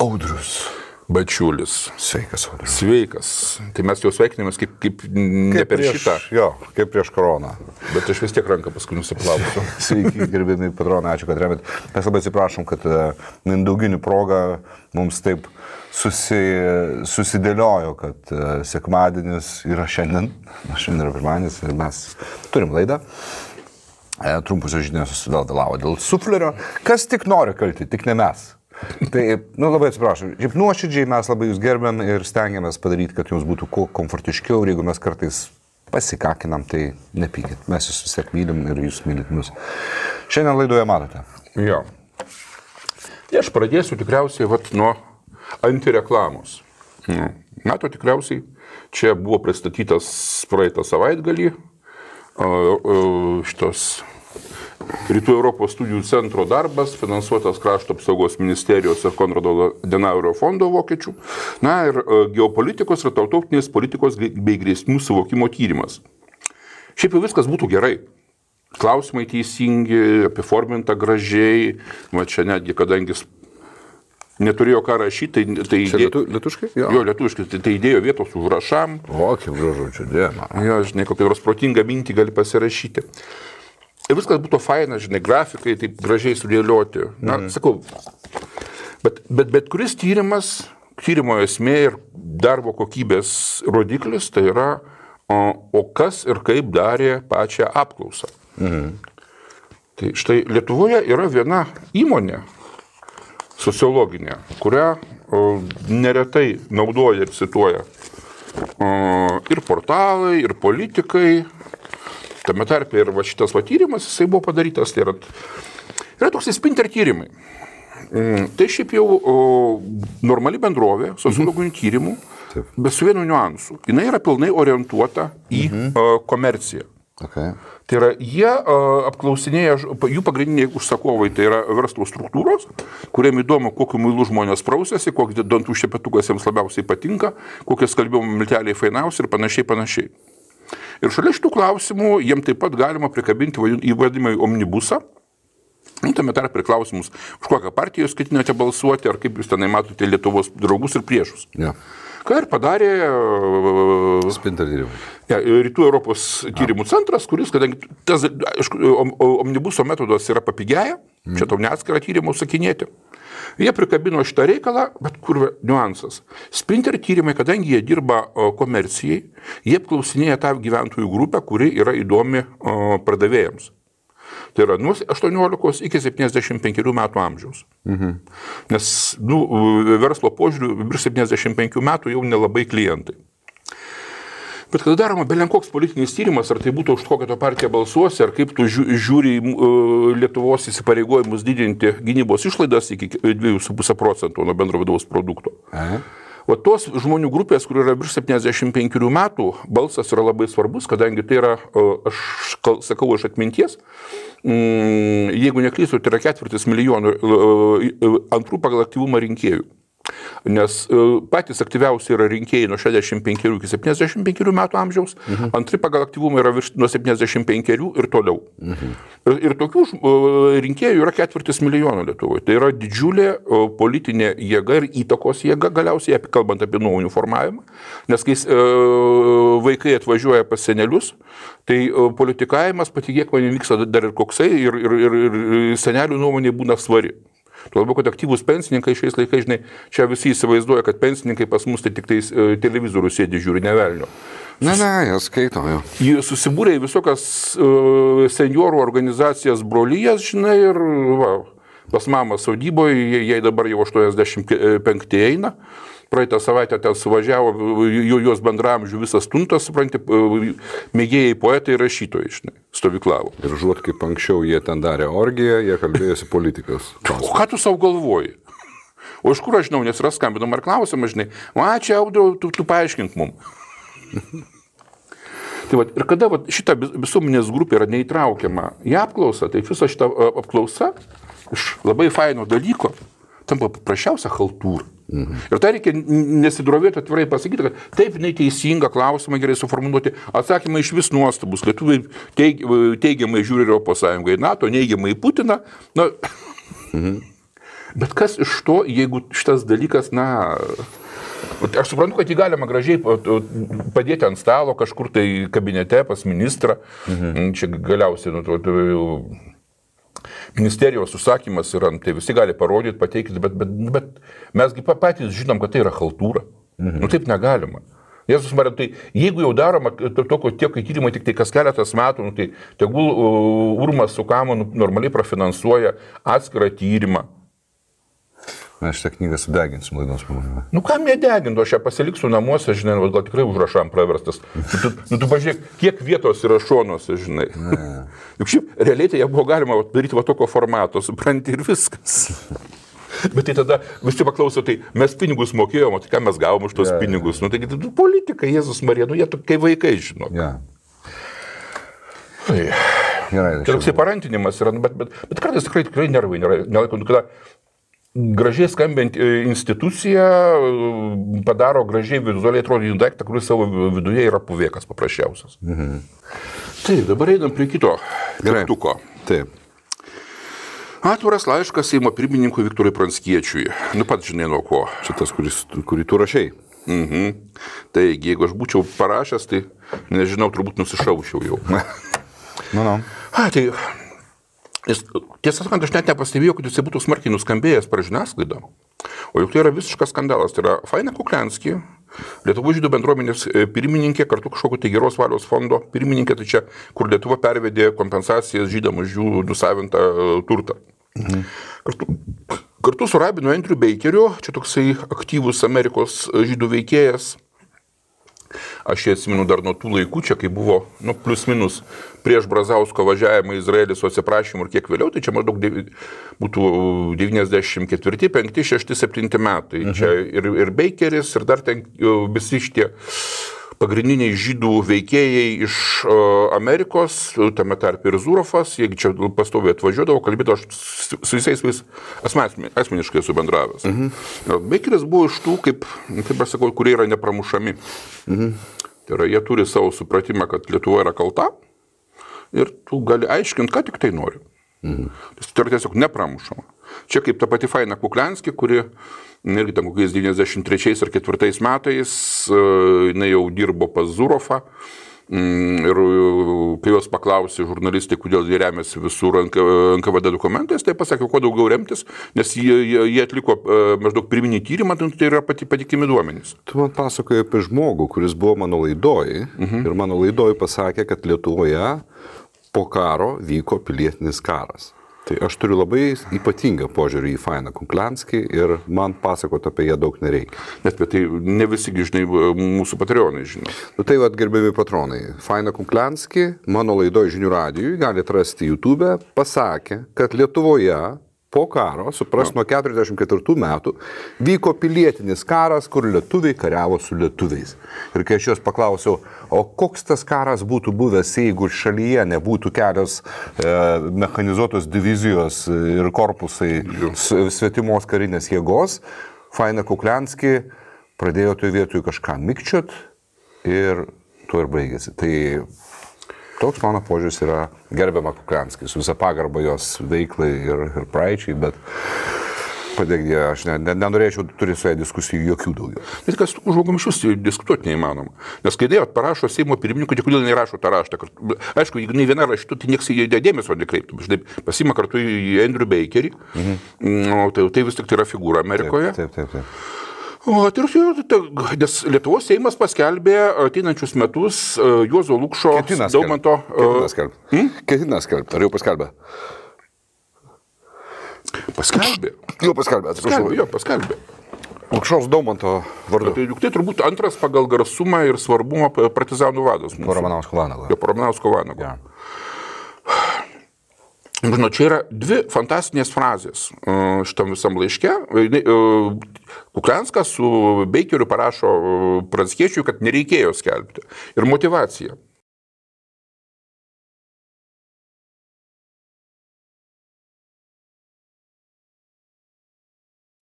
Audrius Bačiulis. Sveikas, Audrius. Sveikas. Tai mes jau sveikinamės kaip ne per šitą. Jo, kaip prieš koroną. Bet aš vis tiek ranką paskui nusiplausiu. Sveiki, gerbėmi patronai, ačiū, kad remėt. Mes labai atsiprašom, kad mindauginių proga mums taip susidėliojo, kad sekmadienis yra šiandien yra pirmadienis ir mes turim laidą. Trumpusios žinios susidėlavo dėl suflerio. Kas tik nori kalti, tik ne mes. Tai, labai atsiprašau, šiaip nuoširdžiai mes labai jūs gerbėm ir stengiamės padaryti, kad jums būtų kuo komfortiškiau ir jeigu mes kartais pasikakinam, tai nepykit. Mes jūs vis tiek mylim ir jūs mylit mus. Šiandien laidoje matote. Jo. Tai aš pradėsiu tikriausiai nuo antireklamos. Mato tikriausiai, čia buvo pristatytas praeitą savaitgalį šitos Rytų Europos studijų centro darbas, finansuotas Krašto apsaugos ministerijos ir Konrado Adenauerio fondo vokiečių. Na ir geopolitikos ir tarptautinės politikos bei grėsmių suvokimo tyrimas. Šiaip jau viskas būtų gerai. Klausimai teisingi, apiforminta gražiai. Va čia netgi, kadangi neturėjo ką rašyti, tai čia lietuviškai? Jo, lietuviškai. Tai įdėjo vietos užrašam. O, kaip gražu, čia dėma. Jo, žinai, kokią nors protingą mintį gali pasirašyti. Ir viskas būtų faina, žinai, grafikai taip gražiai sudėlioti. Na, sakau, bet kuris tyrimo esmė ir darbo kokybės rodiklis, tai yra, o kas ir kaip darė pačią apklausą. Tai štai Lietuvoje yra viena įmonė sociologinė, kurią neretai naudoja ir cituoja ir portalai, ir politikai. Tame tarpe ir šitas tyrimas, jisai buvo padarytas, tai yra toks Spinter tyrimai. Tai šiaip jau normali bendrovė, sociologinių tyrimų, bet su vienu niuansu. Jinai yra pilnai orientuota į komerciją. Okay. Tai yra, jie apklausinėja, jų pagrindiniai užsakovai, tai yra verslo struktūros, kuriem įdomu, kokiu muilu žmonės prausiasi, kokį dantų šepetukas jiems labiausiai patinka, kokie skalbimo milteliai fainiausi ir panašiai. Ir šalia šitų klausimų jiem taip pat galima prikabinti įvadimą į omnibusą. Tame tarp ir klausimus, už kokią partiją jūs ketinate balsuoti, ar kaip jūs tenai matote Lietuvos draugus ir priešus. Ja. Ką ir padarė Spinter tyrimai. Rytų Europos tyrimų centras, kuris, kadangi tas omnibuso metodas yra papigėję, čia tau neatskirą tyrimą užsakinėti. Jie prikabino šitą reikalą, bet kur niuansas. Spinter tyrimai, kadangi jie dirba komercijai, jie apklausinėja tą gyventojų grupę, kuri yra įdomi pardavėjams. Tai yra nuo 18 iki 75 metų amžiaus. Nes verslo požiūriu virš 75 metų jau nelabai klientai. Bet kada daroma belenkoks politinis tyrimas, ar tai būtų už kokią to partiją balsuosi, ar kaip tu žiūri Lietuvos įsipareigojimus didinti gynybos išlaidas iki 2,5% nuo bendro vidaus produkto. O tos žmonių grupės, kur yra virš 75 metų, balsas yra labai svarbus, kadangi tai yra, aš sakau iš atminties, jeigu neklystu, tai yra 4 milijonų antrų pagal aktyvumą rinkėjų. Nes patys aktyviausi yra rinkėjai nuo 65 iki 75 metų amžiaus, antri pagal aktyvumą yra nuo 75 ir toliau. Ir tokių rinkėjų yra 4 milijonų Lietuvoje. Tai yra didžiulė politinė jėga ir įtakos jėga, galiausiai kalbant apie nuomonių formavimą. Nes kai vaikai atvažiuoja pas senelius, tai politikavimas, patikėk man, vyksta dar ir koksai ir senelių nuomonė būna svari. Tuo labiau, kad aktyvūs pensininkai šiais laikais, žinai, čia visi įsivaizduoja, kad pensininkai pas mus tai tik televizorių sėdi žiūri, ne velnio. Ne, jie skaito, jo. Jie susibūrė į visokias seniorų organizacijas brolyjas, žinai, ir pas mamą sodyboje, jai dabar jau 85 eina. Praeitą savaitę ten suvažiavo jos bendramžių visas tuntas, supranti, mėgėjai poetai ir rašytojai, žinai, stovyklavo. Ir žuot, kaip anksčiau jie ten darė orgiją, jie kalbėjosi politikas. O ką tu savo galvoji? O iš kur aš žinau, nes yra skambinama ir klausimą, žinai, čia Audriau, tu paaiškink mum. Tai ir kada šita visuomenės grupė yra neįtraukiama į apklausą, tai visa šita apklausa iš labai faino dalyko tampa paprasčiausia haltūra. Ir tai reikia nesidrovėti atvirai pasakyti, kad taip, jinai teisinga, klausimą gerai suformuluoti, atsakymai iš vis nuostabus. Lietuviai teigiamai žiūri Europos Sąjungą į NATO, neigiamai į Putiną. Bet kas iš to, jeigu šitas dalykas, na... Aš suprantu, kad jį galima gražiai padėti ant stalo kažkur tai kabinete pas ministrą. Čia galiausiai ministerijos užsakymas yra, tai visi gali parodyti, pateikti, bet mesgi patys žinom, kad tai yra chaltūra. Taip negalima. Jėzus Marija, tai jeigu jau daroma tiek tyrimai tik tai kas keletas metų, tai tegul Urmas su Kamu normaliai prafinansuoja atskirą tyrimą. Mes šitą knygą sudeginsim laidos pabaigoje. Kam nedeginti, aš ją pasiliksiu namuose, žinai, gal tikrai užrašam praverstas. Tu pažiūrėk, kiek vietos yra šonuose, žinai. Juk šiaip realiai tai ją buvo galima daryti tokio formato, supranti, ir viskas. Bet tai tada visi paklauso, tai mes pinigus mokėjom, tai ką mes gavom už tos pinigus. Taigi politika, Jėzus Marija, jie kai vaikai, žinok. Gerai. Tai toksai parantinimas yra, bet kartais tikrai nervai nelaiko, kada gražiai skambinti institucija padaro gražiai vizualiai atrodyti daiktą, kuris savo viduje yra puvėkas paprasčiausias. Taip, dabar einam prie kito teptuko. Taip. Atviras laiškas Seimo pirmininkui Viktorui Pranckiečiui. Pats žinai nuo ko. Šitas, kurį tu rašei. Taigi, jeigu aš būčiau parašęs, tai nežinau, turbūt nusišaučiau jau. Tai... Tiesą sakant, aš net nepastebėjau, kad jis būtų smarkiai nuskambėjęs per žiniasklaidą. O juk tai yra visiškas skandalas. Tai yra Faina Kukliansky, Lietuvos žydų bendruomenės pirmininkė, kartu kažkokio tai geros valios fondo pirmininkė, tai čia, kur Lietuva pervedė kompensacijas žydam už jų nusavintą turtą. Kartu su rabinu Andrew Bakeriu, čia toksai aktyvus Amerikos žydų veikėjas. Aš jį atsimenu dar nuo tų laikų, čia kai buvo, plius minus, prieš Brazausko važiavimą į Izraelį su atsiprašymu ir kiek vėliau, tai čia maždaug būtų 94, 5, 6, 7 metai. Čia ir Bakeris, ir dar ten visi šitie pagrindiniai žydų veikėjai iš Amerikos, tame tarp ir Zurofas, jeigu čia pastoviai atvažiuodavo, kalbėdavo, aš su visais asmeniškai esu bendravęs. Bakeris buvo iš tų, kaip aš sakau, kurie yra nepramušami. Tai yra, jie turi savo supratimą, kad Lietuva yra kalta ir tu gali aiškinti, ką tik tai nori. Tai yra tiesiog nepramušama. Čia kaip ta pati Faina Kukliansky, kuri irgi ten kokiais 93 ar 4 metais jinai jau dirbo pas Zurofą ir kai jos paklausė žurnalistai, kodėl jie remiasi visur NKVD dokumentais, tai pasakė, kuo daugiau remtis, nes jie atliko maždaug pirminį tyrimą, tai yra patikimi duomenys. Tu man pasakoji apie žmogų, kuris buvo mano laidoj ir mano laidoj pasakė, kad Lietuvoje po karo vyko pilietinis karas. Tai aš turiu labai ypatingą požiūrį į Fainą Kukliansky ir man pasakoti apie ją daug nereikia. Net bet tai ne visi, žinai, mūsų patronai žino. Tai gerbiami patronai, Faina Kukliansky mano laidoj Žinių radijui, galite rasti YouTube, pasakė, kad Lietuvoje po karo, supras, nuo 44 metų, vyko pilietinis karas, kur lietuviai kariavo su lietuviais. Ir kai aš jos paklausiau, o koks tas karas būtų buvęs, jeigu šalyje nebūtų kelios mechanizuotos divizijos ir korpusai svetimos karinės jėgos, Faina Kukliansky pradėjo toje vietoje kažką mikčiot ir tuo ir baigėsi. Tai toks mano požiūris yra gerbiama Kukliansky, su visą pagarbą jos veiklai ir praeičiai, bet padėkdė, aš nenorėčiau turėti su ją diskusijų jokių daugiau. Bet kas tų žmogum iš jūsų diskutuoti neįmanoma. Nes kai dėjot parašo Seimo pirmininkui, tai kodėl nerašo tą raštą. Aišku, jeigu nei viena raštų, tai nieks į dėmesio nekreiptų. Štai pasima kartu į Andrew Bakerį, tai vis tik tai yra figūra Amerikoje. Taip. Nes Lietuvos Seimas paskelbė ateinančius metus Juozo Lukšo Daumanto... Ketina skelbti. Ar jau paskelbė? Paskelbė. Jau paskelbė, atsiprašau. Paskelbė. Lukšos Daumanto vardu. Tai turbūt antras pagal garsumą ir svarbumą partizanų vadas. Po Ramanausko Vanago. Po Ramanausko Vanago. Žinau, čia yra dvi fantastinės frazės šitam visam laiške. Kuklianskas su Bakeriu parašo Pranckiečiui, kad nereikėjo skelbti. Ir motyvacija.